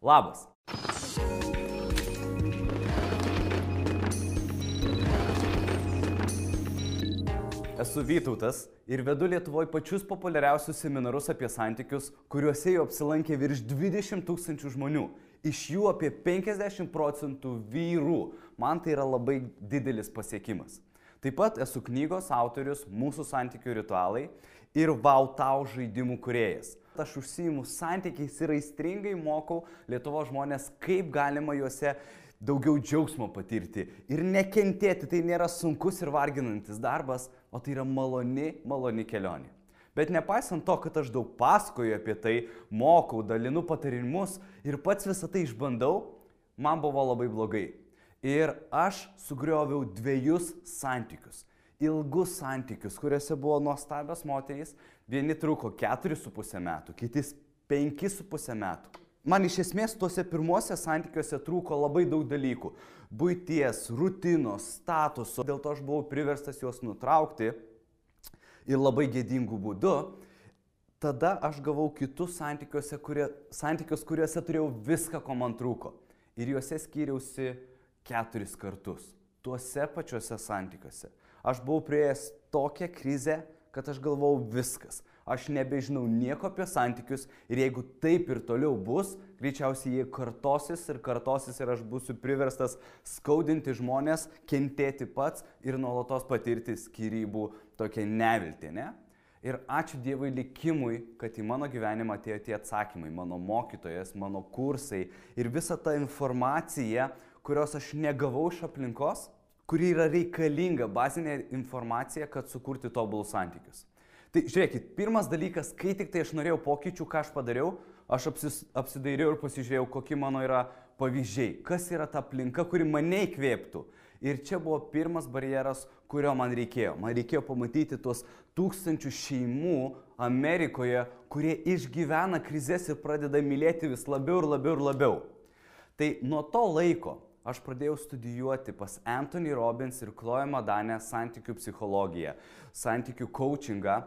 Labas. Esu Vytautas ir vedu Lietuvoje pačius populiariausius seminarus apie santykius, kuriuose jau apsilankė virš 20 000 žmonių. Iš jų apie 50% vyrų. Man tai yra labai didelis pasiekimas. Taip pat esu knygos autorius Mūsų santykių ritualai ir Wow Tau žaidimų kūrėjas. Aš užsiimu santykiais ir aistringai mokau Lietuvos žmonės, kaip galima juose daugiau džiaugsmo patirti ir nekentėti. Tai nėra sunkus ir varginantis darbas, o tai yra maloni kelionė. Bet nepaisant to, kad aš daug pasakoju apie tai, mokau, dalinu patarimus ir pats visą tai išbandau, man buvo labai blogai. Ir aš sugrioviau 2 santykius. Ilgus santykius, kuriuose buvo nuostabios moterys. Vieni truko 4,5 metų, kitis 5,5 metų. Man iš esmės tuose pirmuose santykiuose trūko labai daug dalykų. Buities, rutinos, statuso. Dėl to aš buvau priverstas juos nutraukti ir labai gėdingų būdų. Tada aš gavau kitus santykius, kuriuose turėjau viską, ko man trūko. Ir juose skyriausi 4 kartus. Tuose pačiuose santykiuose. Aš buvau prieėjęs tokią krizę, kad aš galvojau viskas. Aš nebežinau nieko apie santykius ir jeigu taip ir toliau bus, greičiausiai jie kartosis ir aš būsiu priverstas skaudinti žmonės, kentėti pats ir nuolatos patirti skyrybų tokią neviltį, ne? Ir ačiū Dievui likimui, kad į mano gyvenimą atėjo tie atsakymai, mano mokytojas, mano kursai ir visa ta informacija, kurios aš negavau iš aplinkos, kuri yra reikalinga bazinė informacija, kad sukurti tobulus santykius. Tai žiūrėkit, pirmas dalykas, kai tik tai aš norėjau pokyčių, ką aš padariau, aš apsidairiau ir pasižiūrėjau, kokie mano yra pavyzdžiai, kas yra ta aplinka, kuri mane įkvėptų. Ir čia buvo pirmas barjeras, kurio man reikėjo. Man reikėjo pamatyti tuos 1000 šeimų Amerikoje, kurie išgyvena krizes ir pradeda mylėti vis labiau ir labiau ir labiau. Tai nuo to laiko aš pradėjau studijuoti pas Anthony Robbins ir Chloe Madane santykių psichologiją, santykių coachingą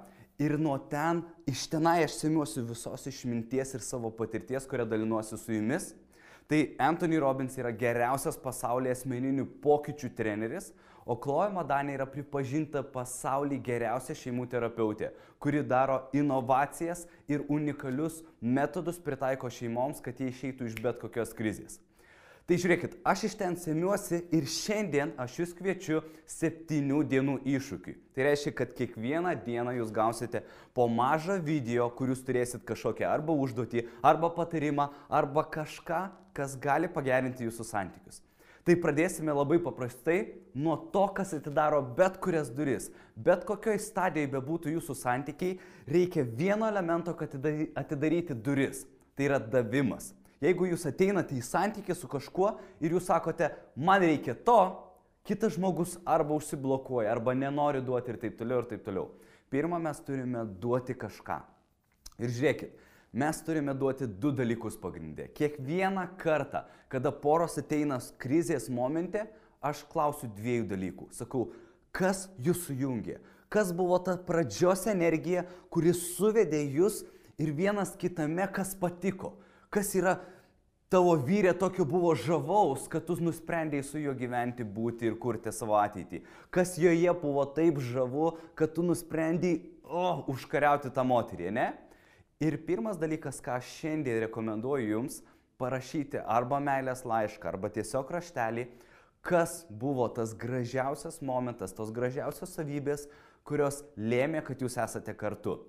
ir nuo ten, iš tenai aš semiuosi visos išminties ir savo patirties, kurią dalinuosi su jumis. Tai Anthony Robbins yra geriausias pasaulyje asmeninių pokyčių treneris, o Chloe Madane yra pripažinta pasaulyje geriausia šeimų terapeutė, kuri daro inovacijas ir unikalius metodus pritaiko šeimoms, kad jie išeitų iš bet kokios krizės. Tai žiūrėkit, aš iš ten semiuosi ir šiandien aš jūs kviečiu 7 dienų iššūkiui. Tai reiškia, kad kiekvieną dieną jūs gausite po mažą video, kur jūs turėsit kažkokią arba užduotį, arba patarimą, arba kažką, kas gali pagerinti jūsų santykius. Tai pradėsime labai paprastai nuo to, kas atidaro bet kurias duris. Bet kokioj stadijoje bebūtų jūsų santykiai, reikia vieno elemento, kad atidaryti duris. Tai yra davimas. Jeigu jūs ateinate į santykį su kažkuo ir jūs sakote, man reikia to, kitas žmogus arba užsiblokuoja, arba nenori duoti ir taip toliau ir taip toliau. Pirma, mes turime duoti kažką. Ir žiūrėkit, mes turime duoti 2 dalykus pagrindė. Kiekvieną kartą, kada poros ateina krizės momente, aš klausiu 2 dalykų. Sakau, kas jūs sujungė? Kas buvo ta pradžios energija, kuri suvedė jūs ir vienas kitame, kas patiko? Kas yra tavo vyrė tokio buvo žavaus, kad tu nusprendėjai su juo gyventi, būti ir kurti savo ateitį? Kas joje buvo taip žavu, kad tu nusprendėjai užkariauti tą moterį, ne? Ir pirmas dalykas, ką aš šiandien rekomenduoju jums, parašyti arba meilės laišką, arba tiesiog raštelį, kas buvo tas gražiausias momentas, tos gražiausios savybės, kurios lėmė, kad jūs esate kartu.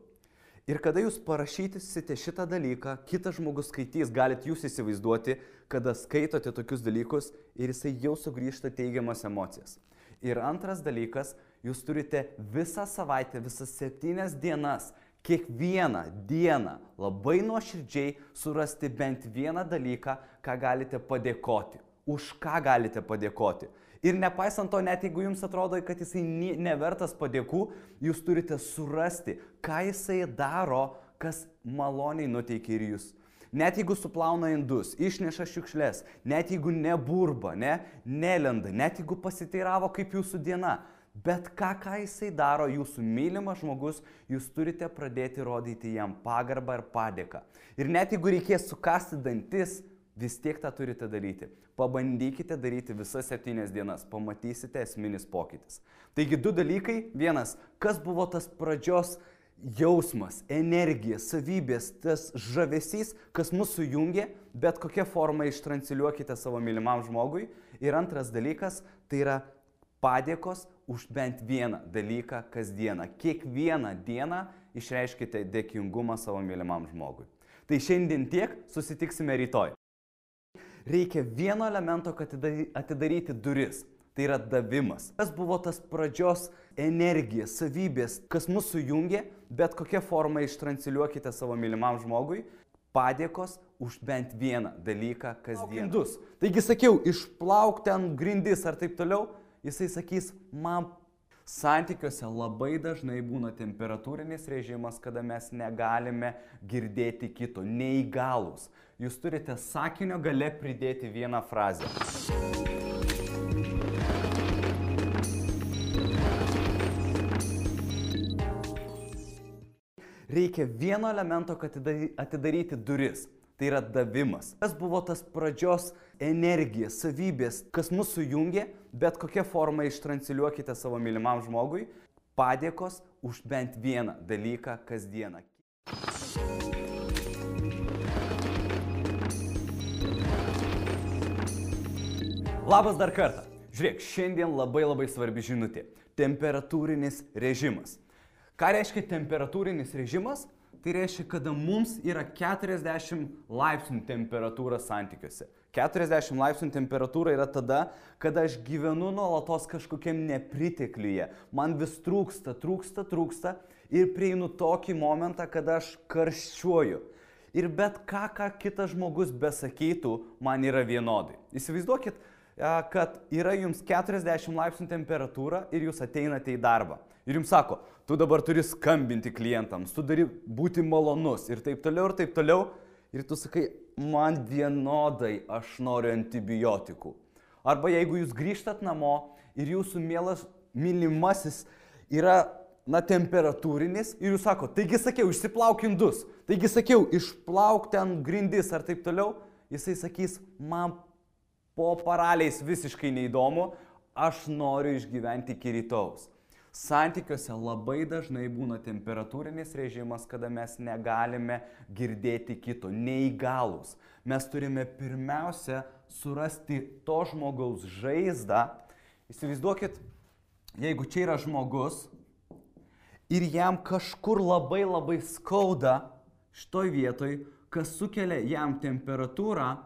Ir kada jūs parašysite šitą dalyką, kitas žmogus skaitys, galite jūs įsivaizduoti, kada skaitote tokius dalykus ir jisai jau sugrįžta teigiamas emocijas. Ir antras dalykas, jūs turite visą savaitę, visas 7 dienas, kiekvieną dieną labai nuoširdžiai surasti bent vieną dalyką, ką galite padėkoti. Už ką galite padėkoti. Ir nepaisant to, net jeigu jums atrodo, kad jisai nevertas padėkų, jūs turite surasti, ką jisai daro, kas maloniai nuteikia ir jūs. Net jeigu suplauna indus, išneša šiukšles, net jeigu neburba, nelenda, net jeigu pasiteiravo kaip jūsų diena, bet ką jisai daro, jūsų mylimas žmogus, jūs turite pradėti rodyti jam pagarbą ir padėką. Ir net jeigu reikės sukasti dantis, vis tiek tą turite daryti. Pabandykite daryti visas 7 dienas, pamatysite esminis pokytis. Taigi 2 dalykai. Vienas, kas buvo tas pradžios jausmas, energija, savybės, tas žavesys, kas mus sujungia, bet kokią formą ištransliuokite savo mylimam žmogui. Ir antras dalykas, tai yra padėkos už bent vieną dalyką kasdieną. Kiekvieną dieną išreiškite dėkingumą savo mylimam žmogui. Tai šiandien tiek, susitiksime rytoj. Reikia vieno elemento, kad atidaryti duris. Tai yra davimas. Kas buvo tas pradžios energija, savybės, kas mus sujungia, bet kokią formą ištransliuokite savo mylimam žmogui. Padėkos už bent vieną dalyką kasdien. Taigi sakiau, išplauk ten grindis ar taip toliau, jisai sakys, man santykiuose labai dažnai būna temperatūrinis režimas, kada mes negalime girdėti kito, neįgalūs. Jūs turite sakinio gale pridėti vieną frazę. Reikia vieno elemento, kad atidaryti duris. Tai yra davimas. Kas buvo tas pradžios energija, savybės, kas mus sujungia, bet kokią formą ištransliuokite savo mylimam žmogui. Padėkos už bent vieną dalyką kasdieną. Labas dar kartą. Žiūrėk, šiandien labai svarbi žinutė. Temperatūrinis režimas. Ką reiškia temperatūrinis režimas? Tai reiškia, kada mums yra 40 laipsnių temperatūra santykiuose. 40 laipsnių temperatūra yra tada, kada aš gyvenu nuolatos kažkokiam nepritekliuje. Man vis trūksta ir prieinu tokį momentą, kada aš karščiuoju. Ir bet ką kitas žmogus besakytų, man yra vienodai. Įsivaizduokit, kad yra jums 40 laipsnių temperatūra ir jūs ateinate į darbą. Ir jums sako, tu dabar turi skambinti klientams, tu turi būti malonus ir taip toliau. Ir tu sakai, man vienodai aš noriu antibiotikų. Arba jeigu jūs grįžtat namo ir jūsų mylimasis yra temperatūrinis ir jūs sako, taigi sakiau, išsiplauk indus, taigi sakiau, išplauk ten grindis ar taip toliau, jisai sakys, man po paraliais visiškai neįdomu, aš noriu išgyventi iki rytojaus. Santykiuose labai dažnai būna temperatūrinis režimas, kada mes negalime girdėti kito, neįgalūs. Mes turime pirmiausia surasti to žmogaus žaizdą. Įsivaizduokit, jeigu čia yra žmogus ir jam kažkur labai skauda šitoj vietoj, kas sukelia jam temperatūrą,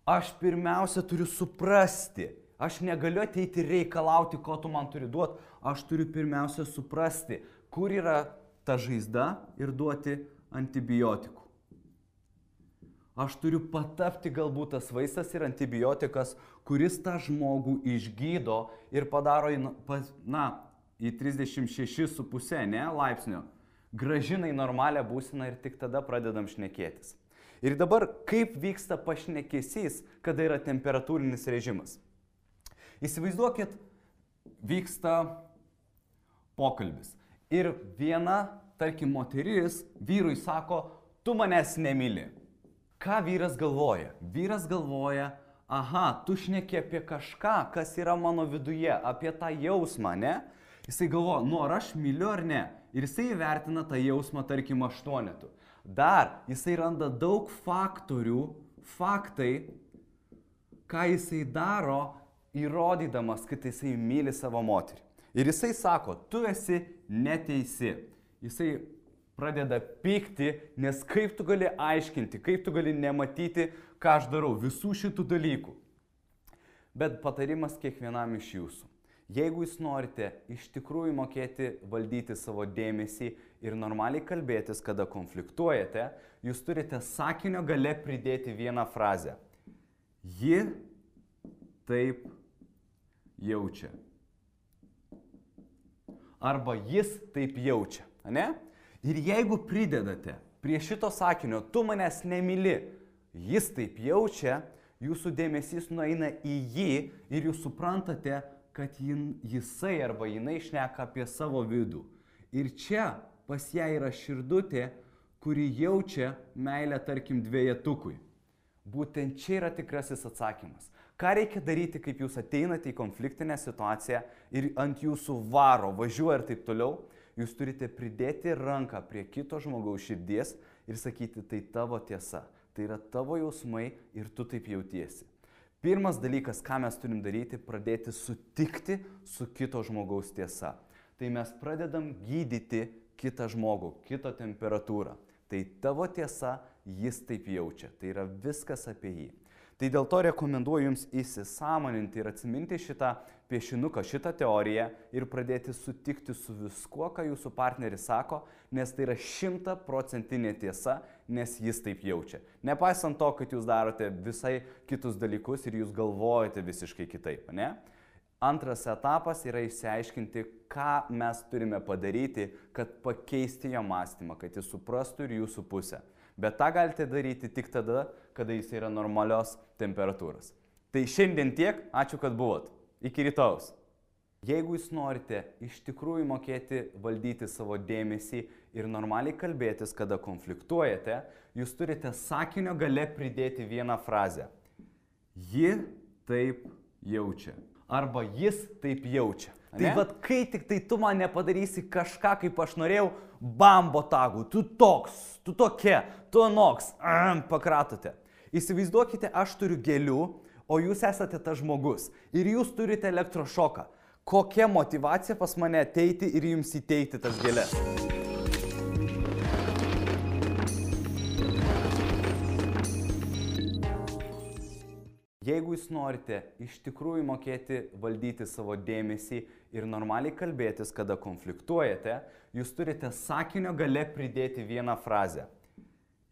aš pirmiausia turiu suprasti. Aš negaliu ateiti reikalauti, ko tu man turi duoti. Aš turiu pirmiausia suprasti, kur yra ta žaizda ir duoti antibiotikų. Aš turiu patapti galbūt tas vaistas ir antibiotikas, kuris tą žmogų išgydo ir padaro į 36,5 laipsnio. Gražina į normalią būseną ir tik tada pradedam šnekėtis. Ir dabar kaip vyksta pašnekesys, kada yra temperatūrinis režimas? Įsivaizduokit, vyksta pokalbis. Ir viena, tarkim, moteris vyrui sako, tu manęs nemyli. Ką vyras galvoja? Vyras galvoja, aha, tu šneki apie kažką, kas yra mano viduje, apie tą jausmą, ne? Jisai galvoja, ar aš myliu ar ne? Ir jisai įvertina tą jausmą, tarkim, 8. Dar jisai randa daug faktai, ką jisai daro, įrodydamas, kad jisai myli savo moterį. Ir jisai sako, tu esi neteisi. Jisai pradeda pykti, nes kaip tu gali aiškinti, kaip tu gali nematyti, ką aš darau, visų šitų dalykų. Bet patarimas kiekvienam iš jūsų. Jeigu jūs norite iš tikrųjų mokėti valdyti savo dėmesį ir normaliai kalbėtis, kada konfliktuojate, jūs turite sakinio gale pridėti vieną frazę. Ji taip jaučia. Arba jis taip jaučia, ne? Ir jeigu pridedate prie šito sakinio, tu manęs nemyli, jis taip jaučia, jūsų dėmesys nueina į jį ir jūs suprantate, kad jisai arba jinai šneka apie savo vidų. Ir čia pas ją yra širdutė, kuri jaučia meilę, tarkim, dvejetukui. Būtent čia yra tikrasis atsakymas. Ką reikia daryti, kaip jūs ateinate į konfliktinę situaciją ir ant jūsų varo, važiuoja ir taip toliau, jūs turite pridėti ranką prie kito žmogaus širdies ir sakyti, tai tavo tiesa, tai yra tavo jausmai ir tu taip jautiesi. Pirmas dalykas, ką mes turim daryti, pradėti sutikti su kito žmogaus tiesa. Tai mes pradedam gydyti kitą žmogų, kito temperatūrą. Tai tavo tiesa, jis taip jaučia. Tai yra viskas apie jį. Tai dėl to rekomenduoju jums įsisąmoninti ir atsiminti šitą piešinuką, šitą teoriją ir pradėti sutikti su viskuo, ką jūsų partneris sako, nes tai yra 100% tiesa, nes jis taip jaučia. Nepaisant to, kad jūs darote visai kitus dalykus ir jūs galvojate visiškai kitaip, ne? Antras etapas yra išsiaiškinti, ką mes turime padaryti, kad pakeisti jo mąstymą, kad jis suprastų ir jūsų pusę. Bet tą galite daryti tik tada, kada jis yra normalios temperatūros. Tai šiandien tiek, ačiū, kad buvot. Iki rytojaus. Jeigu jūs norite iš tikrųjų mokėti valdyti savo dėmesį ir normaliai kalbėtis, kada konfliktuojate, jūs turite sakinio gale pridėti vieną frazę. Ji taip jaučia. Arba jis taip jaučia. Tai vad, kai tik tai tu man nepadarysi kažką, kaip aš norėjau, bam, botagu, tu toks, tu tokia, tu anoks, pakratote. Įsivaizduokite, aš turiu gėlių, o jūs esate tas žmogus ir jūs turite elektrošoką. Kokia motyvacija pas mane ateiti ir jums įteikti tas gėlės? Jeigu jūs norite iš tikrųjų mokėti valdyti savo dėmesį ir normaliai kalbėtis, kada konfliktuojate, jūs turite sakinio gale pridėti vieną frazę.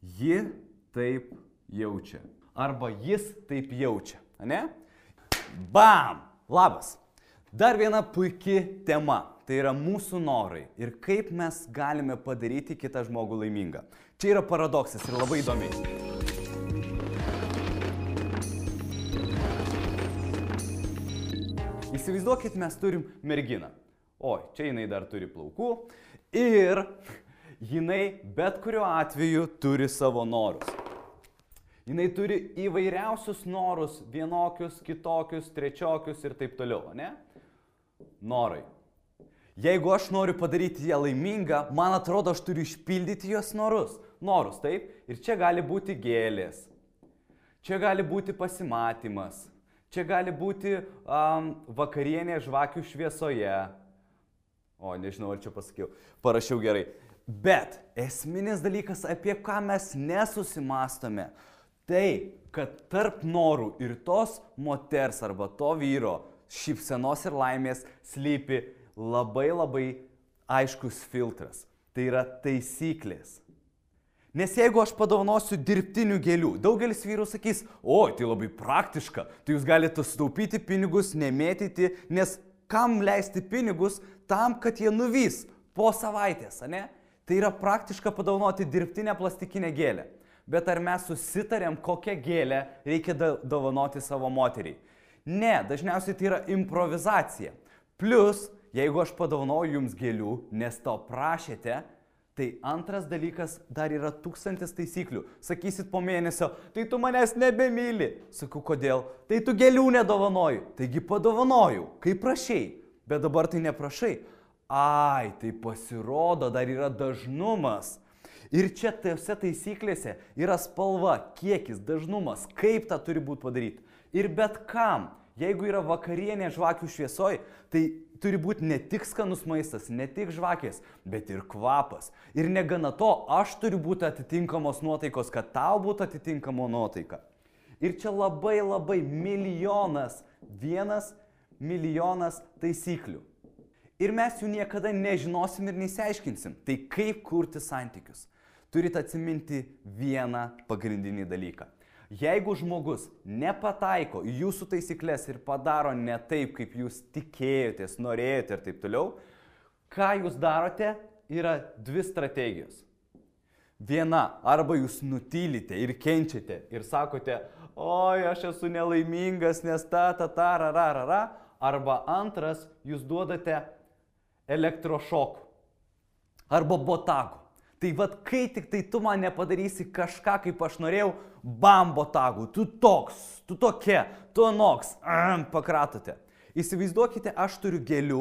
Ji taip jaučia. Arba jis taip jaučia. Ne? Bam! Labas! Dar viena puiki tema. Tai yra mūsų norai ir kaip mes galime padaryti kitą žmogų laimingą. Čia yra paradoksas ir labai įdomiai. Įsivaizduokit, mes turim merginą. Oi, čia jinai dar turi plaukų ir jinai bet kuriuo atveju turi savo norus. Jinai turi įvairiausius norus, vienokius, kitokius, trečiokius ir taip toliau, ne? Norai. Jeigu aš noriu padaryti ją laimingą, man atrodo, aš turiu išpildyti jos norus. Norus, taip? Ir čia gali būti gėlės. Čia gali būti pasimatymas. Čia gali būti vakarienė žvakių šviesoje. O, nežinau, ar čia pasakiau. Parašiau gerai. Bet esminis dalykas, apie ką mes nesusimastome, tai, kad tarp norų ir tos moters arba to vyro šypsenos ir laimės slypi labai aiškus filtras. Tai yra taisyklės. Nes jeigu aš padovanosiu dirbtinių gėlių, daugelis vyrų sakys, oi, tai labai praktiška, tai jūs galite sutaupyti pinigus, nemėtyti, nes kam leisti pinigus tam, kad jie nuvys po savaitės, ne? Tai yra praktiška padovanoti dirbtinę plastikinę gėlę. Bet ar mes susitarėm, kokią gėlę reikia dovanoti savo moteriai? Ne, dažniausiai tai yra improvizacija. Plus, jeigu aš padovanoju jums gėlių, nes to prašėte, tai antras dalykas, dar yra 1000 taisyklių. Sakysit po mėnesio, tai tu manęs nebemyli. Sakau, kodėl? Tai tu gėlių nedovanoju. Taigi padovanoju, kaip prašai. Bet dabar tai neprašai. Ai, tai pasirodo, dar yra dažnumas. Ir čia tose taisyklėse yra spalva, kiekis, dažnumas, kaip tą turi būti padaryti. Ir bet kam, jeigu yra vakarienė žvakių šviesoj, tai turi būti ne tik skanus maistas, ne tik žvakės, bet ir kvapas. Ir negana to, aš turiu būti atitinkamos nuotaikos, kad tau būtų atitinkamo nuotaika. Ir čia labai milijonas, 1 milijonas taisyklių. Ir mes jų niekada nežinosim ir neįsiaiškinsim. Tai kaip kurti santykius? Turite atsiminti vieną pagrindinį dalyką. Jeigu žmogus nepataiko į jūsų taisyklės ir padaro ne taip, kaip jūs tikėjotės, norėjote ir taip toliau, ką jūs darote, yra 2 strategijos. Viena, arba jūs nutylite ir kenčiate ir sakote, oi, aš esu nelaimingas, nes rararara, arba antras, jūs duodate elektrošokų arba botago. Tai vad, kai tik tai tu man nepadarysi kažką, kaip aš norėjau, bam, botagų, tu toks, tu tokia, tu anoks, pakratote. Įsivaizduokite, aš turiu gėlių,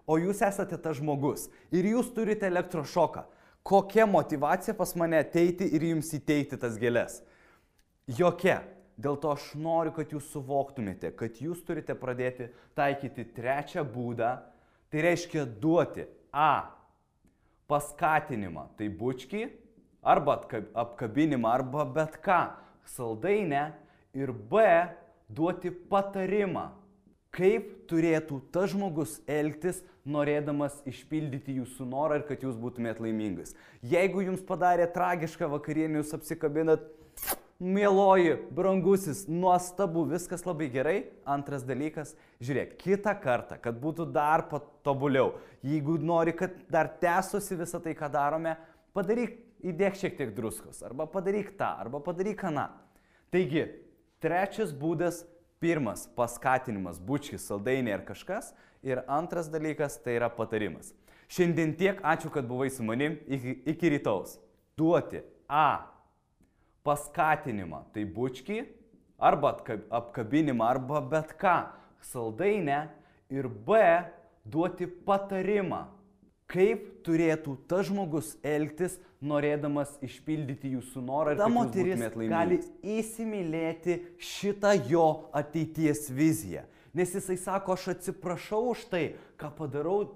o jūs esate tas žmogus ir jūs turite elektrošoką. Kokia motyvacija pas mane ateiti ir jums įteikti tas gėlės? Jokia. Dėl to aš noriu, kad jūs suvoktumėte, kad jūs turite pradėti taikyti trečią būdą, tai reiškia duoti A. Paskatinimą, tai bučkį, arba apkabinimą, arba bet ką, saldainę, ir B. Duoti patarimą, kaip turėtų tas žmogus elgtis, norėdamas išpildyti jūsų norą ir kad jūs būtumėt laimingas. Jeigu jums padarė tragišką vakarienę, jūs apsikabinat, mieloji, brangusis, nuostabu, viskas labai gerai. Antras dalykas, žiūrėk, kitą kartą, kad būtų dar patobuliau, jeigu nori, kad dar tęstusi visą tai, ką darome, padaryk, įdėk šiek tiek druskos, arba padaryk tą, arba padaryk aną. Taigi, trečias būdas, pirmas paskatinimas, bučkis, saldainiai ar kažkas, ir antras dalykas, tai yra patarimas. Šiandien tiek, ačiū, kad buvai su manim, iki rytaus. Duoti A. Paskatinimą, tai bučkį, arba apkabinimą, arba bet ką, saldainę, ir B. Duoti patarimą, kaip turėtų tas žmogus elgtis, norėdamas išpildyti jūsų norą ir kad jūs būtumėt laimingi. Gali įsimylėti šitą jo ateities viziją. Nes jisai sako, aš atsiprašau už tai, ką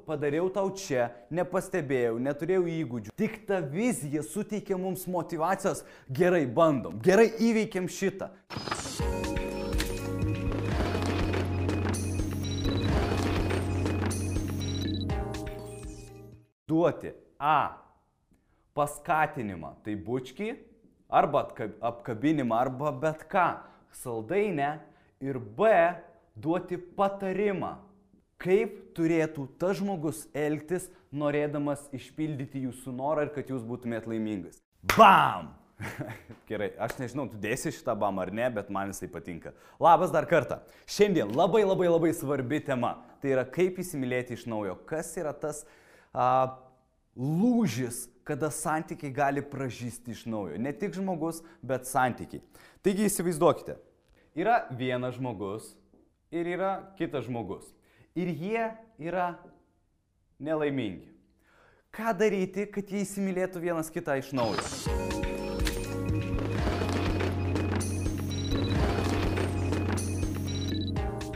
padariau tau čia, nepastebėjau, neturėjau įgūdžių. Tik ta vizija suteikia mums motyvacijos, gerai bandom, gerai įveikiam šitą. Duoti A. Paskatinimą, tai bučkį, arba apkabinimą, arba bet ką, saldainę, ir B. Duoti patarimą, kaip turėtų tas žmogus elgtis, norėdamas išpildyti jūsų norą ir kad jūs būtumėt laimingas. Bam! Gerai, aš nežinau, tu dėsi šitą bam ar ne, bet man jisai patinka. Labas dar kartą. Šiandien labai svarbi tema. Tai yra, kaip įsimylėti iš naujo. Kas yra tas lūžis, kada santykiai gali pražysti iš naujo. Ne tik žmogus, bet santykiai. Taigi įsivaizduokite. Yra vienas žmogus ir yra kitas žmogus. Ir jie yra nelaimingi. Ką daryti, kad jie įsimylėtų vienas kitą iš naujo?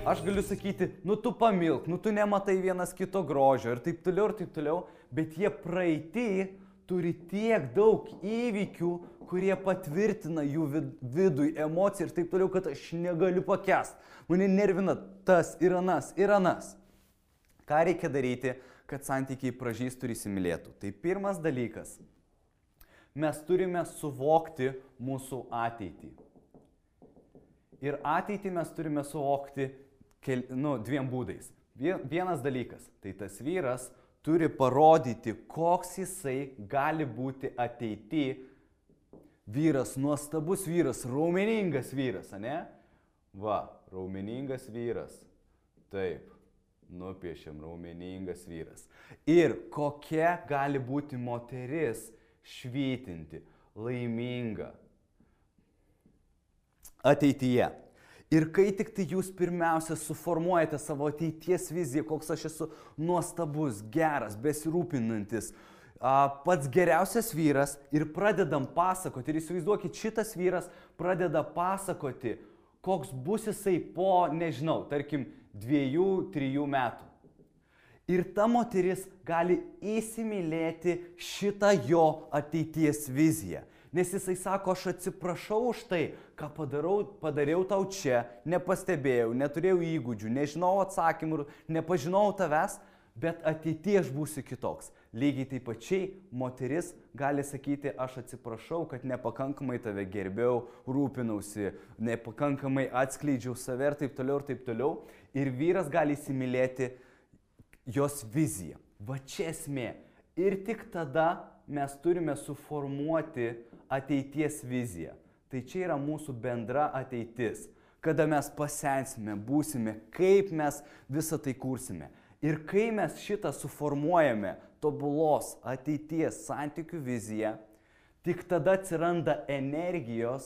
Aš galiu sakyti, nu tu pamilk, nu tu nematai vienas kito grožio ir taip toliau, bet jie praeitį turi tiek daug įvykių, kurie patvirtina jų vidui emociją ir taip toliau, kad aš negaliu pakęsti. Mane nervina tas ir anas. Ką reikia daryti, kad santykiai pražystų ir įsimylėtų? Tai pirmas dalykas. Mes turime suvokti mūsų ateitį. Ir ateitį mes turime suvokti dviem būdais. Vienas dalykas, tai tas vyras turi parodyti, koks jisai gali būti ateity. Vyras, nuostabus vyras, raumeningas vyras, ane? Va, raumeningas vyras. Taip, nupiešiam raumeningas vyras. Ir kokia gali būti moteris švytinti, laiminga ateityje. Ir kai tik tai jūs pirmiausia suformuojate savo ateities viziją, koks aš esu nuostabus, geras, besirūpinantis, pats geriausias vyras ir pradedam pasakoti, ir įsivaizduokit, šitas vyras pradeda pasakoti, koks bus jisai po, nežinau, tarkim, 2-3 metų. Ir ta moteris gali įsimylėti šitą jo ateities viziją. Nes jisai sako, aš atsiprašau už tai, ką padariau tau čia, nepastebėjau, neturėjau įgūdžių, nežinau atsakymų, nepažinau tavęs, bet ateityje aš būsiu kitoks. Lygiai taip pačiai moteris gali sakyti, aš atsiprašau, kad nepakankamai tave gerbėjau, rūpinausi, nepakankamai atskleidžiau save ir taip toliau. Ir vyras gali įsimylėti jos viziją. Va čia esmė. Ir tik tada mes turime suformuoti ateities viziją. Tai čia yra mūsų bendra ateitis. Kada mes pasensime, būsime, kaip mes visą tai kursime. Ir kai mes šitą suformuojame tobulos ateities santykių viziją, tik tada atsiranda energija,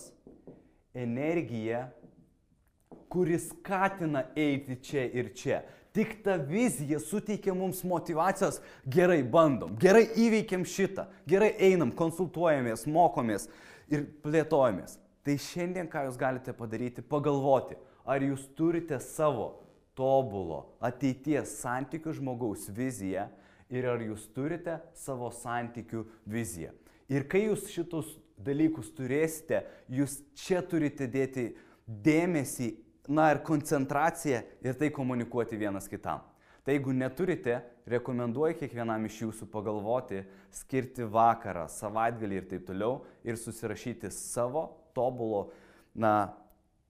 kuris skatina eiti čia ir čia. Tik ta vizija suteikia mums motyvacijos, gerai bandom, gerai įveikiam šitą, gerai einam, konsultuojamės, mokomės ir plėtojamės. Tai šiandien ką jūs galite padaryti, pagalvoti, ar jūs turite savo tobulo ateities santykių žmogaus viziją ir ar jūs turite savo santykių viziją. Ir kai jūs šitus dalykus turėsite, jūs čia turite dėti dėmesį, ir koncentraciją ir tai komunikuoti vienas kitam. Tai jeigu neturite, rekomenduoju kiekvienam iš jūsų pagalvoti, skirti vakarą, savaitgalį ir taip toliau ir susirašyti savo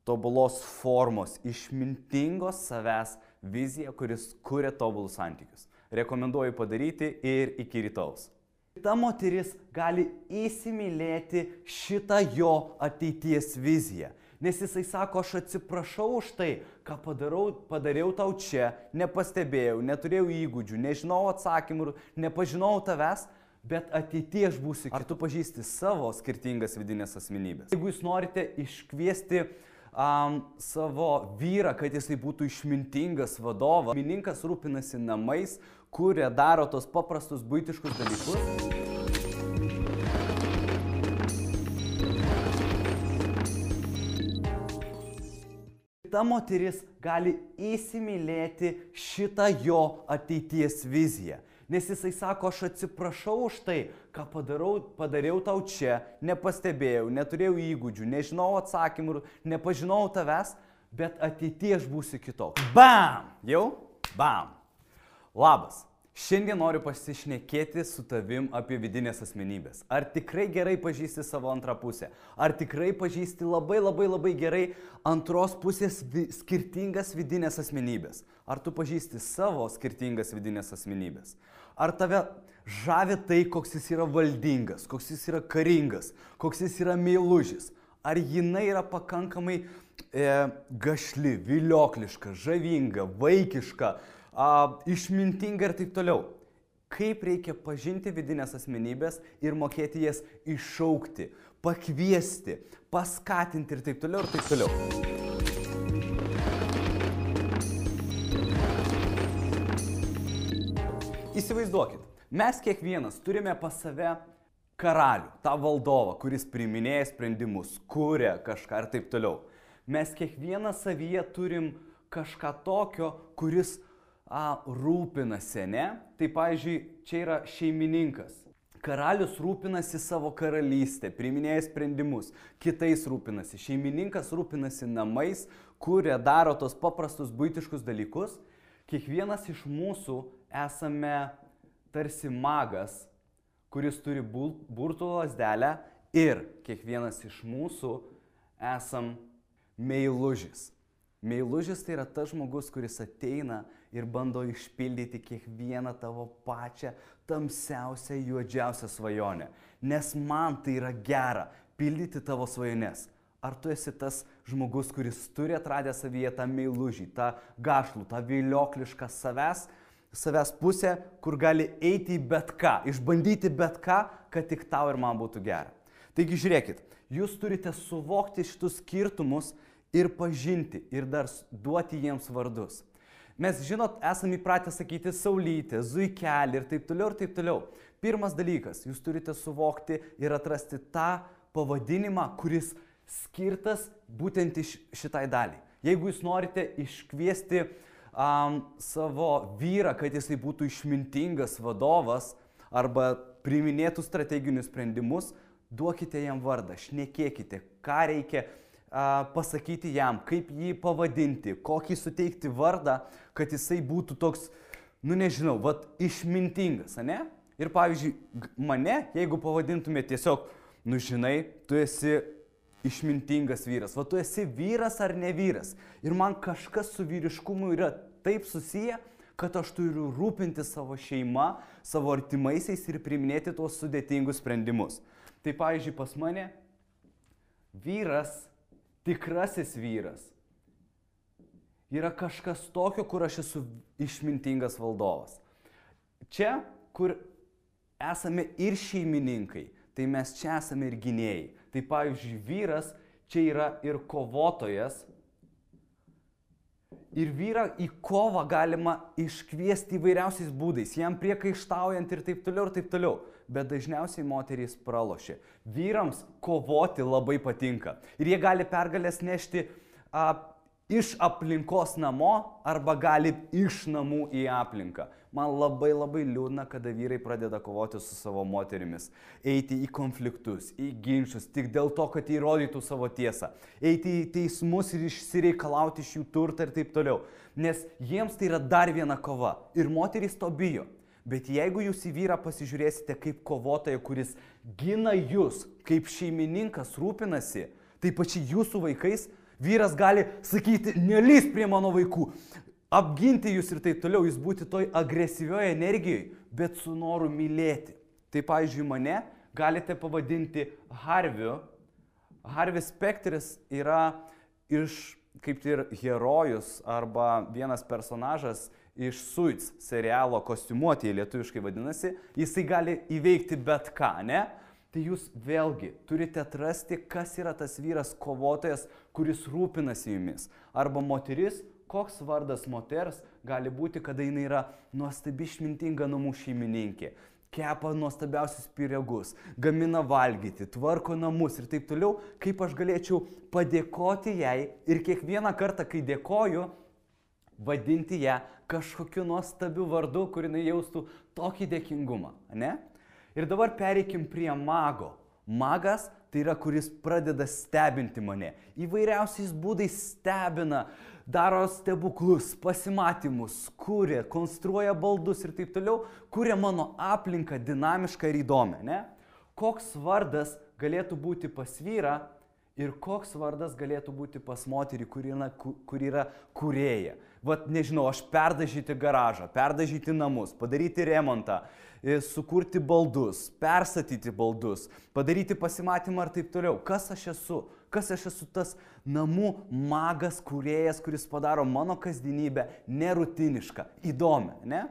tobulos formos, išmintingos savęs viziją, kuris kuria tobulus santykius. Rekomenduoju padaryti ir iki rytaus. Ta moteris gali įsimylėti šitą jo ateities viziją. Nes jisai sako, aš atsiprašau už tai, ką padariau tau čia, nepastebėjau, neturėjau įgūdžių, nežinau atsakymų, nepažinau tavęs, bet ateityje aš būsiu. Ar tu pažįsti savo skirtingas vidinės asmenybės? Jeigu jūs norite iškviesti savo vyrą, kad jisai būtų išmintingas vadovas, šeimininkas rūpinasi namais, kuria, daro tos paprastus buitiškus dalykus. Ta moteris gali įsimylėti šitą jo ateities viziją. Nes jisai sako, aš atsiprašau už tai, ką padariau tau čia, nepastebėjau, neturėjau įgūdžių, nežinau atsakymų, nepažinau tavęs, bet ateityje aš būsiu kitoks. Bam! Jau? Bam! Labas! Šiandien noriu pasišnekėti su tavim apie vidinės asmenybės. Ar tikrai gerai pažįsti savo antrą pusę? Ar tikrai pažįsti labai gerai antros pusės skirtingas vidinės asmenybės? Ar tu pažįsti savo skirtingas vidinės asmenybės? Ar tave žavi tai, koks jis yra valdingas, koks jis yra karingas, koks jis yra meilužis? Ar jinai yra pakankamai gašli, viliokliška, žavinga, vaikiška, išmintinga ir taip toliau. Kaip reikia pažinti vidinės asmenybės ir mokėti jas iššaukti, pakviesti, paskatinti ir taip toliau ir taip toliau. Įsivaizduokit, mes kiekvienas turime pas save karalių, tą valdovą, kuris priiminėja sprendimus, kuria kažką ir taip toliau. Mes kiekvienas savyje turim kažką tokio, kuris rūpinasi, ne? Tai, pavyzdžiui, čia yra šeimininkas. Karalius rūpinasi savo karalystę, priiminėja sprendimus, kitais rūpinasi. Šeimininkas rūpinasi namais, kuria, daro tos paprastus buitiškus dalykus. Kiekvienas iš mūsų esame tarsi magas, kuris turi burtų lazdelę ir kiekvienas iš mūsų esam meilužis. Meilužis tai yra tas žmogus, kuris ateina ir bando išpildyti kiekvieną tavo pačią tamsiausią, juodžiausią svajonę. Nes man tai yra gera pildyti tavo svajones. Ar tu esi tas žmogus, kuris turi atradę savyje tą meilužį, tą gašlų, tą vilioklišką savęs pusę, kur gali eiti į bet ką, išbandyti bet ką, kad tik tau ir man būtų gera. Taigi žiūrėkit, jūs turite suvokti šitus skirtumus ir pažinti, ir dar duoti jiems vardus. Mes, žinot, esame įpratę sakyti saulytė, zuikelį ir taip toliau ir taip toliau. Pirmas dalykas, jūs turite suvokti ir atrasti tą pavadinimą, kuris skirtas būtent šitai daliai. Jeigu jūs norite iškviesti savo vyrą, kad jisai būtų išmintingas vadovas arba priiminėtų strateginius sprendimus, duokite jam vardą, šnekėkite, ką reikia pasakyti jam, kaip jį pavadinti, kokį suteikti vardą, kad jisai būtų toks, nežinau, išmintingas, ane? Ir pavyzdžiui, mane, jeigu pavadintumė tiesiog, žinai, tu esi išmintingas vyras, tu esi vyras ar ne vyras. Ir man kažkas su vyriškumu yra taip susiję, kad aš turiu rūpinti savo šeima, savo artimaisiais ir priiminėti tuos sudėtingus sprendimus. Tai pavyzdžiui, pas mane vyras, tikrasis vyras, yra kažkas tokio, kur aš esu išmintingas valdovas. Čia, kur esame ir šeimininkai, tai mes čia esame ir gynėjai. Tai pavyzdžiui, vyras čia yra ir kovotojas. Ir vyrą į kovą galima iškviesti įvairiausiais būdais, jam priekaištaujant ir taip toliau. Bet dažniausiai moterys pralošia. Vyrams kovoti labai patinka. Ir jie gali pergalės nešti iš aplinkos namo arba gali iš namų į aplinką. Man labai liūdna, kada vyrai pradeda kovoti su savo moterimis. Eiti į konfliktus, į ginčius, tik dėl to, kad įrodytų savo tiesą. Eiti į teismus ir išsireikalauti iš jų turtą ir taip toliau. Nes jiems tai yra dar viena kova. Ir moterys to bijo. Bet jeigu jūs į vyrą pasižiūrėsite kaip kovotoją, kuris gina jūs, kaip šeimininkas rūpinasi, tai pačiai jūsų vaikais, vyras gali sakyti, nelįsk prie mano vaikų, apginti jūs ir taip toliau, jūs būti toj agresyvioje energijoje, bet su noru mylėti. Tai, pavyzdžiui, mane galite pavadinti Harviu. Harvis Specteris yra kaip ir herojus arba vienas personažas iš Suits serialo kostiumuotėje, lietuviškai vadinasi, jisai gali įveikti bet ką, ne? Tai jūs vėlgi turite atrasti, kas yra tas vyras kovotojas, kuris rūpinasi jumis. Arba moteris, koks vardas moters gali būti, kada jinai yra nuostabi išmintinga namų šeimininkė. Kepa nuostabiausius pyragus, gamina valgyti, tvarko namus ir taip toliau, kaip aš galėčiau padėkoti jai ir kiekvieną kartą, kai dėkoju, vadinti ją kažkokiu nuostabiu vardu, kur jinai jaustų tokį dėkingumą, ne? Ir dabar pereikim prie mago. Magas tai yra, kuris pradeda stebinti mane. Įvairiausiais būdais stebina, daro stebuklus, pasimatymus, kuria, konstruoja baldus ir taip toliau, kuria mano aplinką dinamišką ir įdomią, ne? Koks vardas galėtų būti pas vyrą ir koks vardas galėtų būti pas moterį, kur yra kūrėja. Vat, nežinau, aš perdažyti garažą, perdažyti namus, padaryti remontą, sukurti baldus, perstatyti baldus, padaryti pasimatymą ir taip toliau. Kas aš esu? Kas aš esu tas namų magas, kūrėjas, kuris padaro mano kasdienybę nerutinišką, įdomią, ne?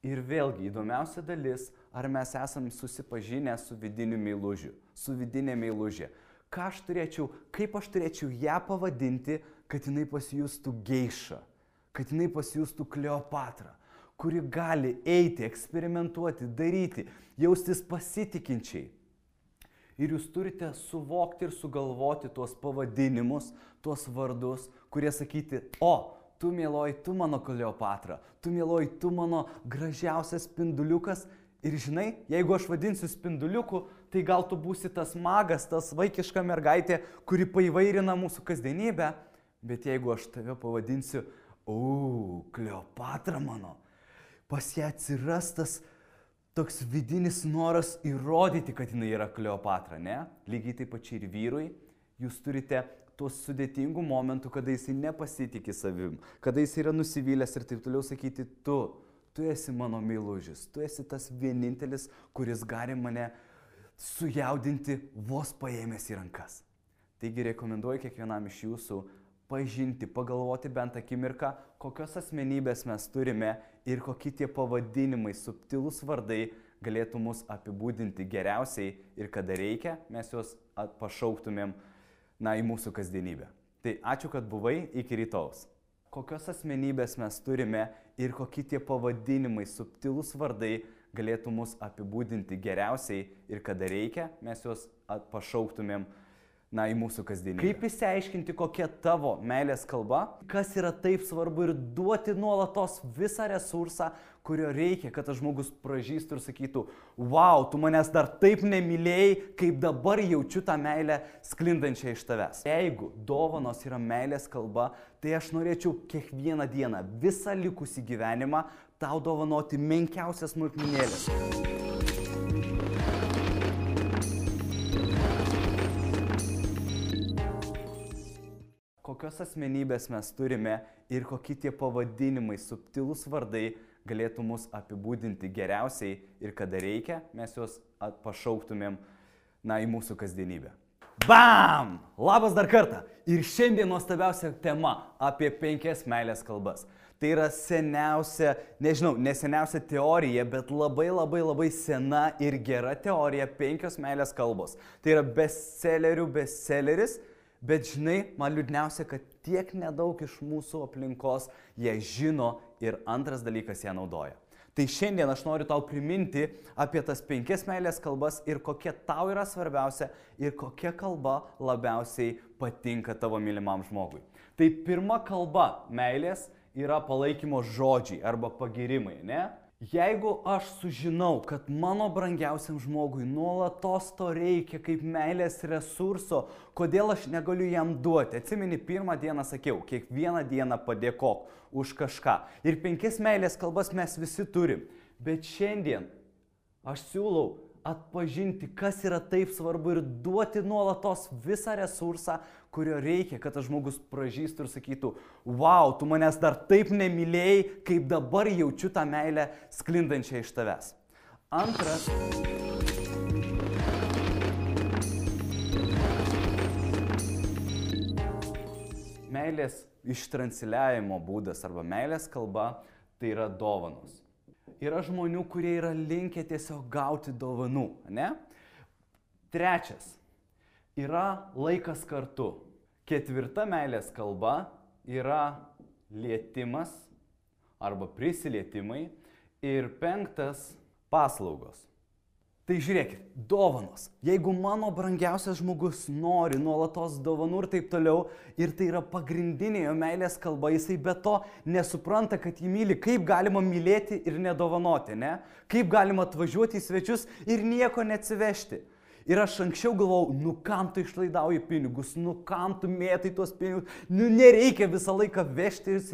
Ir vėlgi įdomiausia dalis, ar mes esam susipažinę su vidiniu meilužiu, su vidinė meilužė. Kaip aš turėčiau ją pavadinti, kad jinai pasijustų geiša, kad jinai pasijustų Kleopatra, kuri gali eiti, eksperimentuoti, daryti, jaustis pasitikinčiai. Ir jūs turite suvokti ir sugalvoti tuos pavadinimus, tuos vardus, kurie sakyti, o, tu mieloji, tu mano Kleopatra, tu mieloji, tu mano gražiausias spinduliukas. Ir žinai, jeigu aš vadinsiu spinduliuku, tai gal tu būsi tas magas, tas vaikiška mergaitė, kuri paįvairina mūsų kasdienybę. Bet jeigu aš tave pavadinsiu, Kleopatra mano, pas ją atsiras tas toks vidinis noras įrodyti, kad jinai yra Kleopatra, ne? Lygiai taip pačiai ir vyrui, jūs turite tuos sudėtingų momentų, kada jisai nepasitikė savim, kada jisai yra nusivylęs ir taip toliau sakyti, tu esi mano meilužis, tu esi tas vienintelis, kuris gali mane sujaudinti vos paėmęs į rankas. Taigi rekomenduoju kiekvienam iš jūsų pažinti, pagalvoti bent akimirką, kokios asmenybės mes turime ir kokie tie pavadinimai, subtilūs vardai galėtų mus apibūdinti geriausiai ir kada reikia, mes juos pašauktumėm į mūsų kasdienybę. Tai ačiū, kad buvai, iki rytojaus. Kokios asmenybės mes turime ir kokie tie pavadinimai, subtilūs vardai galėtų mus apibūdinti geriausiai ir kada reikia, mes juos pašauktumėm į mūsų kasdienybę. Kaip išsiaiškinti, kokia tavo meilės kalba, kas yra taip svarbu ir duoti nuolatos visą resursą, kurio reikia, kad tas žmogus pražystų ir sakytų, wow, tu manęs dar taip nemylėjai, kaip dabar jaučiu tą meilę sklindančią iš tavęs. Jeigu dovanos yra meilės kalba, tai aš norėčiau kiekvieną dieną, visą likusį gyvenimą, tau dovanoti menkiausias smulkmenėlės. Kokios asmenybės mes turime ir kokie tie pavadinimai, subtilūs vardai galėtų mus apibūdinti geriausiai ir kada reikia, mes juos pašauktumėm į mūsų kasdienybę. Bam! Labas dar kartą. Ir šiandien nuostabiausia tema apie 5 meilės kalbas. Tai yra seniausia, ne seniausia teorija, bet labai sena ir gera teorija 5 meilės kalbos. Tai yra bestselleris, bet žinai, man liūdniausia, kad tiek nedaug iš mūsų aplinkos ją žino ir antras dalykas ją naudoja. Tai šiandien aš noriu tau priminti apie tas 5 meilės kalbas ir kokia tau yra svarbiausia ir kokia kalba labiausiai patinka tavo mylimam žmogui. Tai pirma kalba meilės yra palaikymo žodžiai arba pagirimai, ne? Jeigu aš sužinau, kad mano brangiausiam žmogui nuolatos to reikia kaip meilės resurso, kodėl aš negaliu jam duoti? Atsimeni, pirmą dieną sakiau, kiekvieną dieną padėkok už kažką. Ir 5 meilės kalbas mes visi turim. Bet šiandien aš siūlau atpažinti, kas yra taip svarbu ir duoti nuolatos visą resursą, kurio reikia, kad tas žmogus pražystų ir sakytų, wow, tu manęs dar taip nemylėjai, kaip dabar jaučiu tą meilę sklindančią iš tavęs. Antras. Meilės ištransliavimo būdas arba meilės kalba tai yra dovanos. Yra žmonių, kurie yra linkę tiesiog gauti dovanų, ne? Trečias. Yra laikas kartu. 4 meilės kalba yra lietimas arba prisilietimai. Ir 5 paslaugos. Tai žiūrėkit, dovanos. Jeigu mano brangiausias žmogus nori nuolatos dovanų ir taip toliau, ir tai yra pagrindinė jo meilės kalba, jisai be to nesupranta, kad jį myli, kaip galima mylėti ir nedovanoti, ne? Kaip galima atvažiuoti į svečius ir nieko neatsivežti. Ir aš anksčiau galvojau, nu kam tu išlaidauji pinigus, nu kam tu mėtai tuos pinigus, nu nereikia visą laiką vežtis.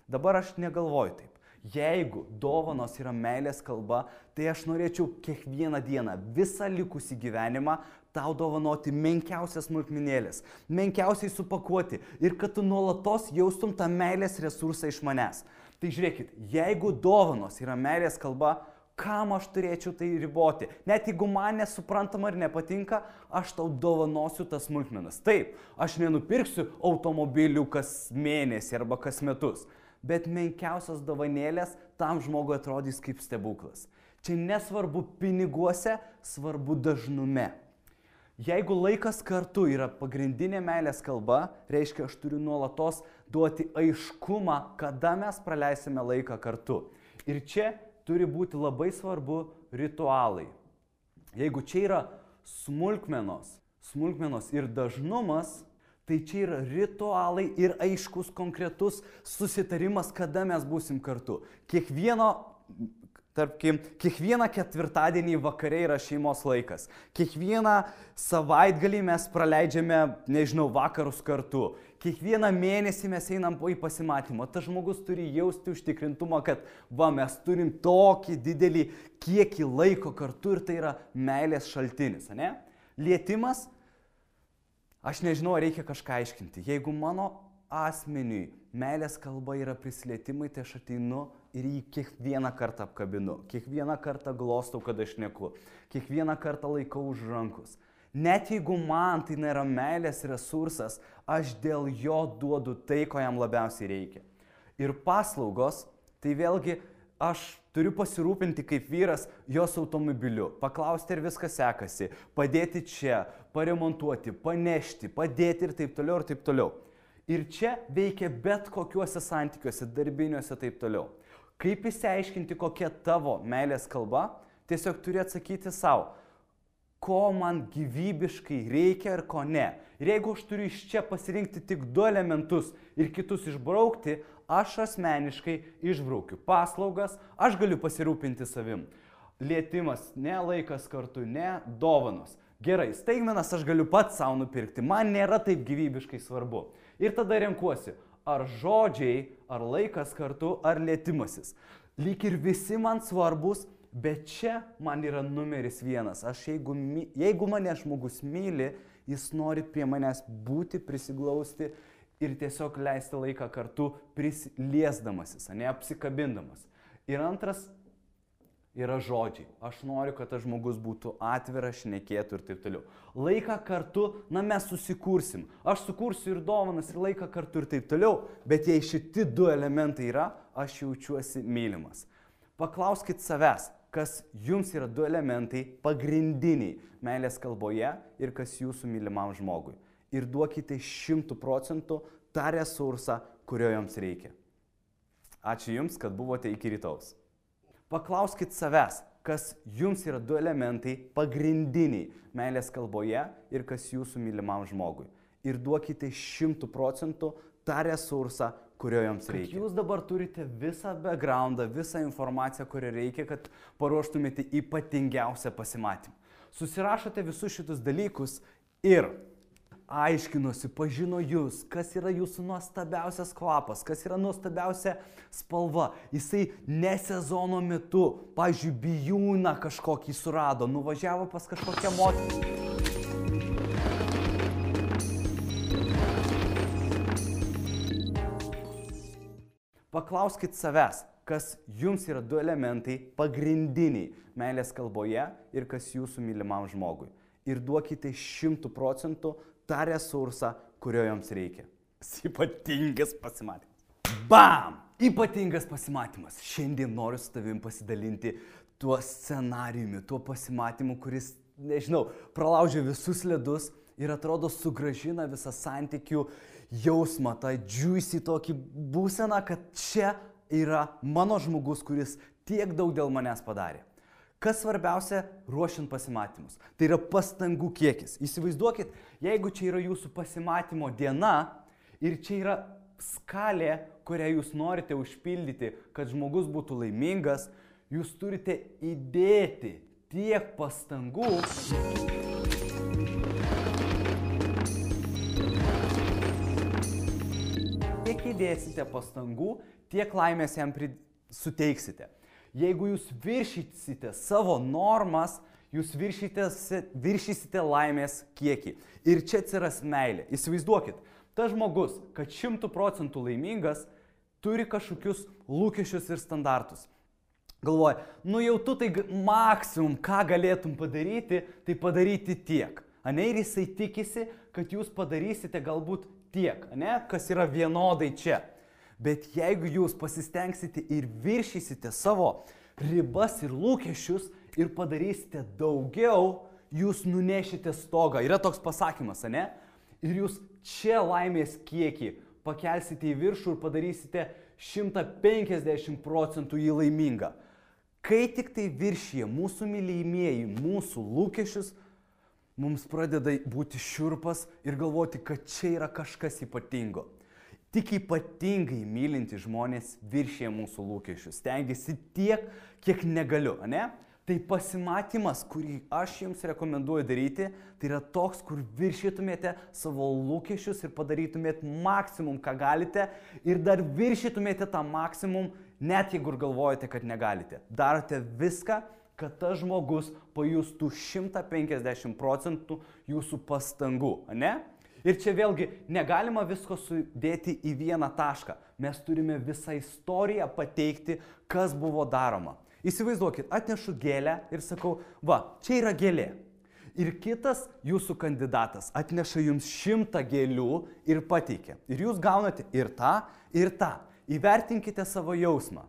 Dabar aš negalvoju taip. Jeigu dovanos yra meilės kalba, tai aš norėčiau kiekvieną dieną, visą likusį gyvenimą, tau dovanoti menkiausias smulkmenėlės, menkiausiai supakuoti ir kad tu nuolatos jaustum tą meilės resursą iš manęs. Tai žiūrėkit, jeigu dovanos yra meilės kalba, kam aš turėčiau tai riboti? Net jeigu man nesuprantama ir nepatinka, aš tau dovanosiu tas smulkmenas. Taip, aš nenupirksiu automobilių kas mėnesį arba kas metus. Bet menkiausios dovanėlės tam žmogui atrodys kaip stebuklas. Čia nesvarbu piniguose, svarbu dažnume. Jeigu laikas kartu yra pagrindinė meilės kalba, reiškia, aš turiu nuolatos duoti aiškumą, kada mes praleisime laiką kartu. Ir čia turi būti labai svarbu ritualai. Jeigu čia yra smulkmenos ir dažnumas, tai čia yra ritualai ir aiškus konkretus susitarimas, kada mes būsim kartu. Kiekvieną ketvirtadienį vakare yra šeimos laikas. Kiekvieną savaitgalį mes praleidžiame, vakarus kartu. Kiekvieną mėnesį mes einam į pasimatymą. Tas žmogus turi jausti užtikrintumą, kad mes turim tokį didelį kiekį laiko kartu ir tai yra meilės šaltinis, ne? Lietimas. Aš nežinau, reikia kažką aiškinti. Jeigu mano asmeniui meilės kalba yra prisilietimai, tai aš ateinu ir jį kiekvieną kartą apkabinu. Kiekvieną kartą glostau, kad aš šneku. Kiekvieną kartą laikau už rankos. Net jeigu man tai nėra meilės resursas, aš dėl jo duodu tai, ko jam labiausiai reikia. Ir paslaugos, tai vėlgi aš turiu pasirūpinti kaip vyras jos automobiliu, paklausti, ar viskas sekasi, padėti čia, paremontuoti, panešti, padėti ir taip toliau. Ir čia veikia bet kokiuose santykiuose, darbiniuose taip toliau. Kaip išsiaiškinti, kokia tavo meilės kalba, tiesiog turi atsakyti savo, ko man gyvybiškai reikia ir ko ne. Ir jeigu aš turiu iš čia pasirinkti tik 2 elementus ir kitus išbraukti, aš asmeniškai išbraukiu paslaugas, aš galiu pasirūpinti savim. Lietimas, ne laikas kartu, ne dovanos. Gerai, staigmenas aš galiu pats savo nupirkti, man nėra taip gyvybiškai svarbu. Ir tada renkuosi, ar žodžiai, ar laikas kartu, ar lietimasis. Lyg ir visi man svarbus, bet čia man yra numeris 1. Jeigu mane žmogus myli, jis nori prie manęs būti, prisiglausti ir tiesiog leisti laiką kartu prisiliesdamasis, ne apsikabindamas. Ir antras yra žodžiai. Aš noriu, kad tas žmogus būtų atviras, šnekėtų ir taip toliau. Laiką kartu, mes susikursim. Aš sukursiu ir dovanas, ir laiką kartu ir taip toliau, bet jei šitie du elementai yra, aš jaučiuosi mylimas. Paklauskit savęs, kas jums yra du elementai pagrindiniai meilės kalboje ir kas jūsų mylimam žmogui. Ir duokite 100% tą resursą, kurio jums reikia. Ačiū Jums, kad buvote iki rytaus. Paklauskit savęs, kas jums yra du elementai pagrindiniai meilės kalboje ir kas jūsų mylimam žmogui. Ir duokite 100% tą resursą, kurio jums reikia. Jūs dabar turite visą backgroundą, visą informaciją, kurią reikia, kad paruoštumėte ypatingiausią pasimatymą. Susirašote visus šitus dalykus ir aiškinosi, pažino jūs, kas yra jūsų nuostabiausias kvapas, kas yra nuostabiausia spalva. Jisai ne sezono metu, pavyzdžiui, bijūną kažkokį surado, nuvažiavo pas kažkokią moterį. Paklauskit savęs, kas jums yra du elementai pagrindiniai meilės kalboje ir kas jūsų mylimam žmogui. Ir duokite 100% tą resursą, kurio jums reikia. Ypatingas pasimatymas. Bam! Ypatingas pasimatymas. Šiandien noriu su tavim pasidalinti tuo scenarijumi, tuo pasimatymu, kuris, nežinau, pralaužia visus ledus ir atrodo sugrąžina visą santykių jausmą, tą juicy tokį būseną, kad čia yra mano žmogus, kuris tiek daug dėl manęs padarė. Kas svarbiausia ruošiant pasimatymus? Tai yra pastangų kiekis. Įsivaizduokit, jeigu čia yra jūsų pasimatymo diena ir čia yra skalė, kurią jūs norite užpildyti, kad žmogus būtų laimingas, jūs turite įdėti tiek pastangų, kiek įdėsite pastangų, tiek laimės jam suteiksite. Jeigu jūs viršysite savo normas, jūs viršysite laimės kiekį. Ir čia atsiras meilė. Įsivaizduokit, tas žmogus, kad 100% laimingas, turi kažkokius lūkesčius ir standartus. Galvoja, jau tu tai maksimum, ką galėtum padaryti, tai padaryti tiek. Ir jisai tikisi, kad jūs padarysite galbūt tiek, kas yra vienodai čia. Bet jeigu jūs pasistengsite ir viršysite savo ribas ir lūkesčius ir padarysite daugiau, jūs nunešite stogą. Yra toks pasakymas, Ir jūs čia laimės kiekį pakelsite į viršų ir padarysite 150% jį laimingą. Kai tik tai viršyje mūsų mylimieji, mūsų lūkesčius, mums pradeda būti šiurpas ir galvoti, kad čia yra kažkas ypatingo. Tik ypatingai mylinti žmonės viršyje mūsų lūkesčius. Stengiasi tiek, kiek negaliu, Tai pasimatymas, kurį aš jums rekomenduoju daryti, tai yra toks, kur viršytumėte savo lūkesčius ir padarytumėte maksimum, ką galite, ir dar viršytumėte tą maksimum, net jeigu galvojate, kad negalite. Darote viską, kad tas žmogus pajustų 150% jūsų pastangų, Ir čia vėlgi negalima visko sudėti į vieną tašką. Mes turime visą istoriją pateikti, kas buvo daroma. Įsivaizduokit, atnešu gėlę ir sakau, čia yra gėlė. Ir kitas jūsų kandidatas atneša jums 100 gėlių ir pateikia. Ir jūs gaunate ir tą, ir tą. Įvertinkite savo jausmą.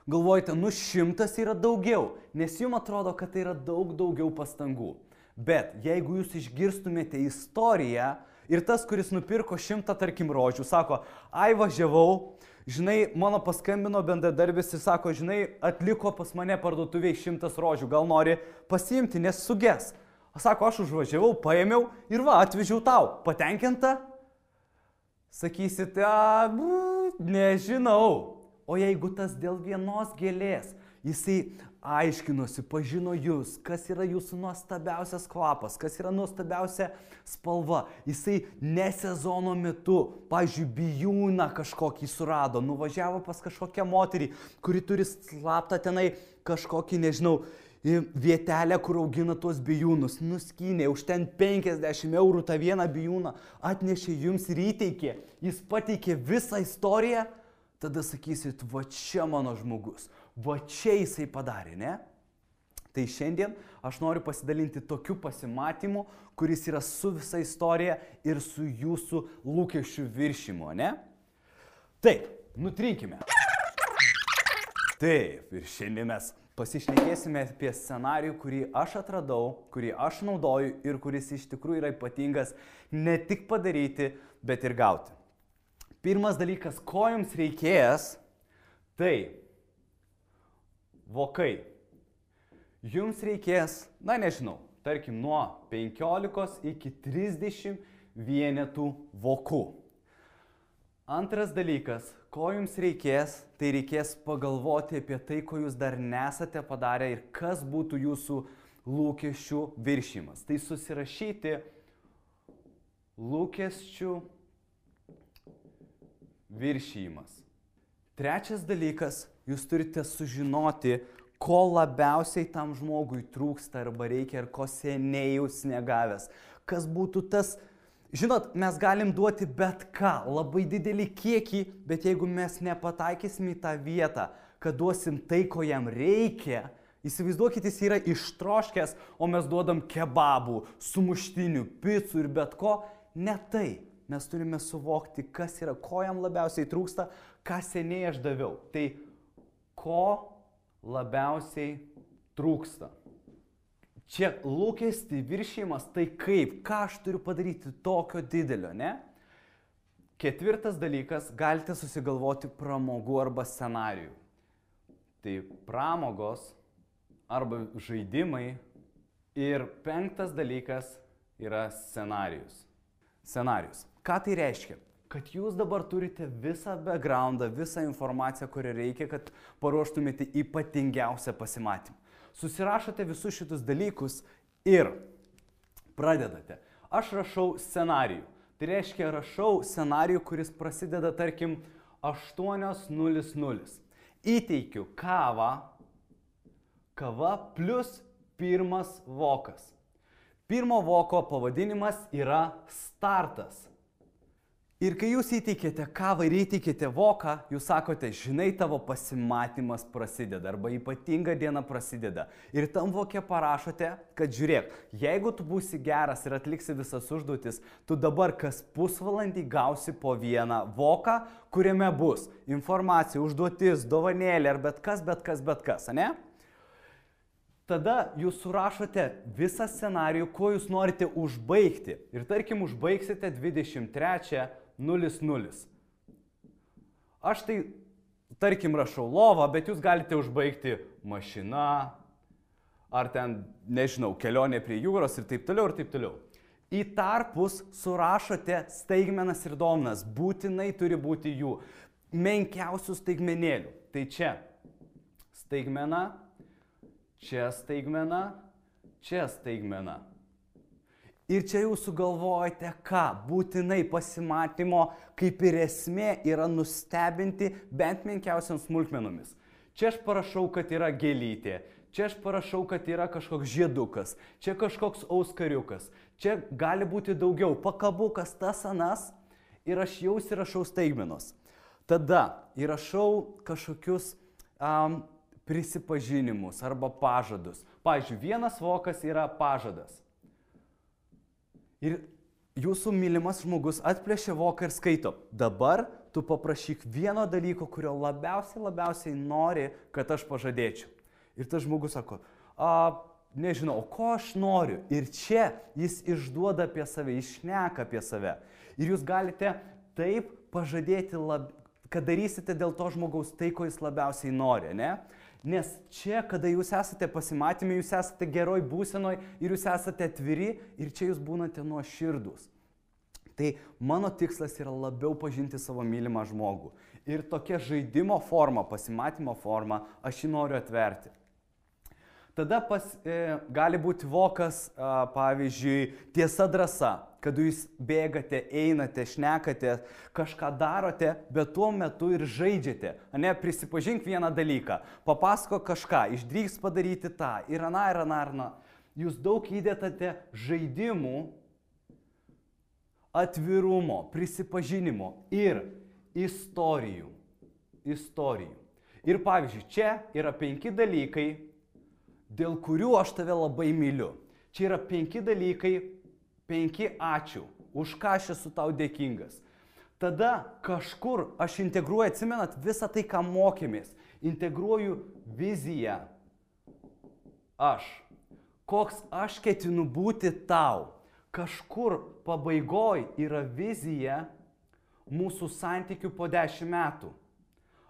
Galvojate, 100 yra daugiau, nes jums atrodo, kad tai yra daug daugiau pastangų. Bet jeigu jūs išgirstumėte istoriją ir tas, kuris nupirko 100, tarkim, rožių, sako, važiavau, mano paskambino bendradarbis ir sako, atliko pas mane parduotuviai 100 rožių, gal nori pasiimti, nes suges. Sako, aš užvažiavau, paėmiau ir atvežiau tau. Patenkinta? Sakysite, nežinau. O jeigu tas dėl vienos gėlės, jisai aiškinosi, pažino jūs, kas yra jūsų nuostabiausias kvapas, kas yra nuostabiausia spalva. Jisai ne sezono metu, pavyzdžiui, bijūną kažkokį surado, nuvažiavo pas kažkokią moterį, kuri turi slaptą tenai kažkokį, vietelę, kur augina tuos bijūnus, nuskynė, už ten 50 eurų tą vieną bijūną, atnešė jums ir įteikė, jis pateikė visą istoriją. Tada sakysit, čia mano žmogus. Va čia jisai padarė, ne? Tai šiandien aš noriu pasidalinti tokiu pasimatymu, kuris yra su visa istorija ir su jūsų lūkesčių viršimu, ne? Taip, nutrinkime. Taip, ir šiandien mes pasišnekėsime apie scenarijų, kurį aš atradau, kurį aš naudoju ir kuris iš tikrųjų yra ypatingas ne tik padaryti, bet ir gauti. Pirmas dalykas, ko jums reikės, tai vokai. Jums reikės, na nežinau, tarkim nuo 15 iki 30 vienetų vokų. Antras dalykas, ko jums reikės, tai reikės pagalvoti apie tai, ko jūs dar nesate padarę ir kas būtų jūsų lūkesčių viršijimas. Tai susirašyti lūkesčių viršijimas. Trečias dalykas, jūs turite sužinoti, ko labiausiai tam žmogui trūksta arba reikia ir ko seniai jūs negavęs. Kas būtų tas, žinot, mes galim duoti bet ką, labai didelį kiekį, bet jeigu mes nepataikysim į tą vietą, kad duosim tai, ko jam reikia, įsivaizduokit, jis yra ištroškęs, o mes duodam kebabų, sumuštinių, picų ir bet ko, ne tai. Mes turime suvokti, kas yra, ko jam labiausiai trūksta, ką seniai aš daviau. Tai ko labiausiai trūksta. Čia lūkestį viršijimas, tai kaip, ką aš turiu padaryti tokio didelio, ne? Ketvirtas dalykas, galite susigalvoti pramogų arba scenarijų. Tai pramogos arba žaidimai. Ir penktas dalykas yra scenarijus. Scenarijus. Ką tai reiškia? Kad jūs dabar turite visą backgroundą, visą informaciją, kurią reikia, kad paruoštumėte ypatingiausią pasimatymą. Susirašote visus šitus dalykus ir pradedate. Aš rašau scenarijų. Tai reiškia, rašau scenarijų, kuris prasideda, tarkim, 8:00. Įteikiu kava plus pirmas vokas. Pirmo voko pavadinimas yra startas. Ir kai jūs įteikėte kavą ir įteikėte voką, jūs sakote, žinai, tavo pasimatymas prasideda arba ypatinga diena prasideda. Ir tam vokė parašote, kad žiūrėk, jeigu tu būsi geras ir atliksi visas užduotis, tu dabar kas pusvalandį gausi po vieną voką, kuriame bus informacija, užduotis, dovanėlė ar bet kas, ne? Tada jūs surašote visą scenarijų, ko jūs norite užbaigti. Ir tarkim, užbaigsite 23:00. Aš tai, tarkim, rašau lovą, bet jūs galite užbaigti mašina, ar ten, nežinau, kelionė prie jūros ir taip toliau, ir taip toliau. Į tarpus surašote staigmenas ir dovanas, būtinai turi būti jų menkiausių staigmenėlių. Tai čia staigmena, čia staigmena, čia staigmena. Ir čia jūs sugalvojate ką? Būtinai pasimatymo kaip ir esmė yra nustebinti bent menkiausiam smulkmenomis. Čia aš parašau, kad yra gėlytė, čia aš parašau, kad yra kažkoks žiedukas, čia kažkoks auskariukas, čia gali būti daugiau, pakabukas, tas anas ir aš jau įrašau staigmenos. Tada įrašau kažkokius prisipažinimus arba pažadus. Pavyzdžiui, vienas vokas yra pažadas. Ir jūsų mylimas žmogus atplėšia voką ir skaito. Dabar tu paprašyk vieno dalyko, kurio labiausiai nori, kad aš pažadėčiau. Ir tas žmogus sako, nežinau, ko aš noriu. Ir čia jis išduoda apie save, išneka apie save. Ir jūs galite taip pažadėti, kad darysite dėl to žmogaus tai, ko jis labiausiai nori, ne? Nes čia, kada jūs esate pasimatymė, jūs esate geroj būsenoj ir jūs esate atviri ir čia jūs būnate nuoširdūs. Tai mano tikslas yra labiau pažinti savo mylimą žmogų. Ir tokia žaidimo forma, pasimatymo forma, aš jį noriu atverti. Tada gali būti vokas, pavyzdžiui, tiesa drąsa, kad jūs bėgate, einate, šnekate, kažką darote, bet tuo metu ir žaidžiate. Ne, prisipažink vieną dalyką, papasako kažką, išdrįs padaryti tą, ir aną. Jūs daug įdėtate žaidimų, atvirumo, prisipažinimo ir istorijų. Ir pavyzdžiui, čia yra 5 dalykai, dėl kurių aš tave labai myliu. Čia yra 5 dalykai, 5 ačiū, už ką aš esu tau dėkingas. Tada kažkur aš integruoju, atsimenat, visą tai, ką mokėmės. Integruoju viziją. Aš. Koks aš ketinu būti tau. Kažkur pabaigoj yra vizija mūsų santykių po 10 metų.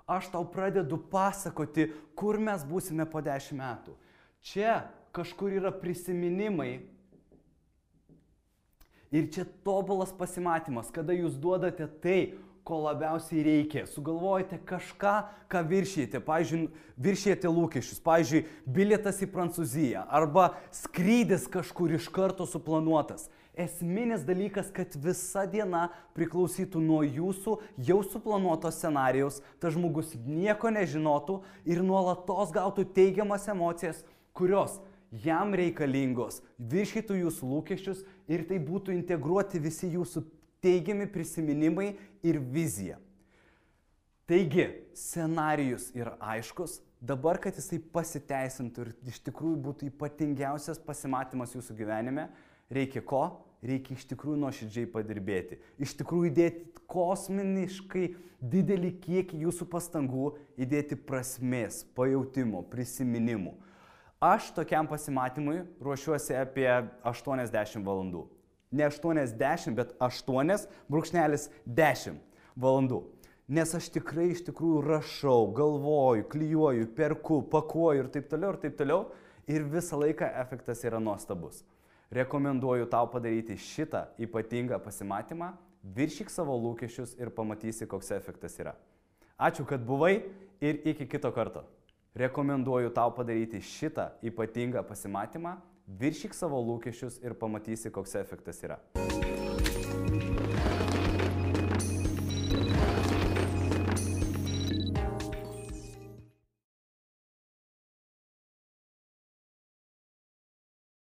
Aš tau pradedu pasakoti, kur mes būsime po 10 metų. Čia kažkur yra prisiminimai. Ir čia tobulas pasimatymas, kada jūs duodate tai, ko labiausiai reikia. Sugalvojate kažką, ką viršijate. Pavyzdžiui, viršijate lūkesčius. Pavyzdžiui, bilietas į Prancūziją arba skrydis kažkur iš karto suplanuotas. Esminis dalykas, kad visa diena priklausytų nuo jūsų jau suplanuoto scenarijaus, tas žmogus nieko nežinotų ir nuolatos gautų teigiamas emocijas, kurios jam reikalingos, viršytų jūsų lūkesčius ir tai būtų integruoti visi jūsų teigiami prisiminimai ir vizija. Taigi, scenarijus yra aiškus, dabar, kad jisai pasiteisintų ir iš tikrųjų būtų ypatingiausias pasimatymas jūsų gyvenime, reikia ko? Reikia iš tikrųjų nuoširdžiai padirbėti. Iš tikrųjų įdėti kosminiškai didelį kiekį jūsų pastangų, įdėti prasmės, pajautimo, prisiminimų. Aš tokiam pasimatymui ruošiuosi apie 80 valandų. Ne 80, bet 8,10 valandų. Nes aš tikrai iš tikrųjų rašau, galvoju, klijuoju, perku, pakuoju ir taip toliau. Ir visą laiką efektas yra nuostabus. Rekomenduoju tau padaryti šitą ypatingą pasimatymą, viršyk savo lūkesčius ir pamatysi, koks efektas yra. Ačiū, kad buvai ir iki kito karto. Rekomenduoju tau padaryti šitą ypatingą pasimatymą, viršyk savo lūkesčius ir pamatysi, koks efektas yra.